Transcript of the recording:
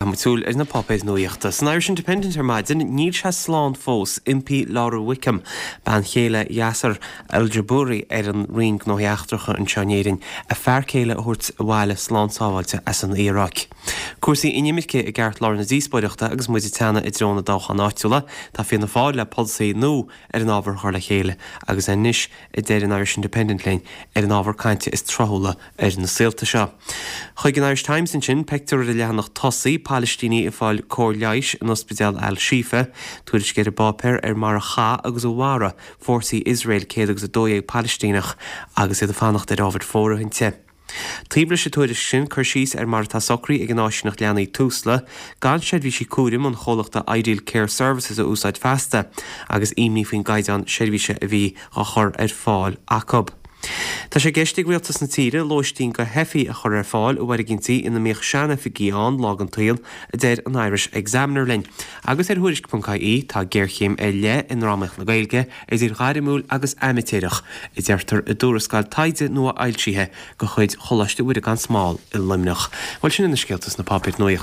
Caithfidh muid súil ar na páipéir nuaíochta. San Irish Independent ar maidin, níl sé slán fós, impí Laura Wickham, bean chéile Yasser Al-Jubouri ar an Roinn Gnóthaí Eachtracha anseo in Éirinn, a fear céile a thabhairt abhaile slán sábháilte as an Iaráic. Cúrsaí inimirce i gceartlár na díospóireachta agus muid ag teannadh i dtreo na dtoghchán áitiúla. Tá Fianna Fáil le polasaí nua ar an ábhar a chur le chéile agus anois, a deir an Irish Independent linn, ar an ábhar cainte is tráthúla ar na saolta seo. Chuig an Irish Times ansin, pictiúr ar an leathanach tosaigh, Palaistínigh ag fáil cóir leighis in ospidéal Al Shifa, tuairisc ar an bpáipéar ar mar a chaith agus a mharaigh fórsaí Iosrael 112 Palaistíneach agus iad ag fanacht ar ábhair fóirithinte. Taobh leis an tuairisc sin, cur síos ar mar atá socraithe ag an áisíneacht leanaí Tusla gan seirbhísí cúraim an chomhlachta Ideal Care Services a úsáid feasta agus imní faoin gcaighdeán seirbhíse a bhí á chur ar fáil acu. Tá sé i gceist ag rialtas na tíre lóistín do theifigh a chur ar fáil i bhfoirgintí ina mbíodh sean-oifigí ann lá den tsaol, a deir an Irish Examiner linn. Agus ar Thuairisc.ie, tá géarchéim ar leith i ndrámaíocht na Gaeilge, idir ghairmiúil agus aimitéireach, a deirtear i dtuarascáil taighde nua-fhoilsithe de chuid Choláiste Mhuire gan Smál i Luimneach. Bhuel, sin iad na scéalta sna páipéir nuaíochta.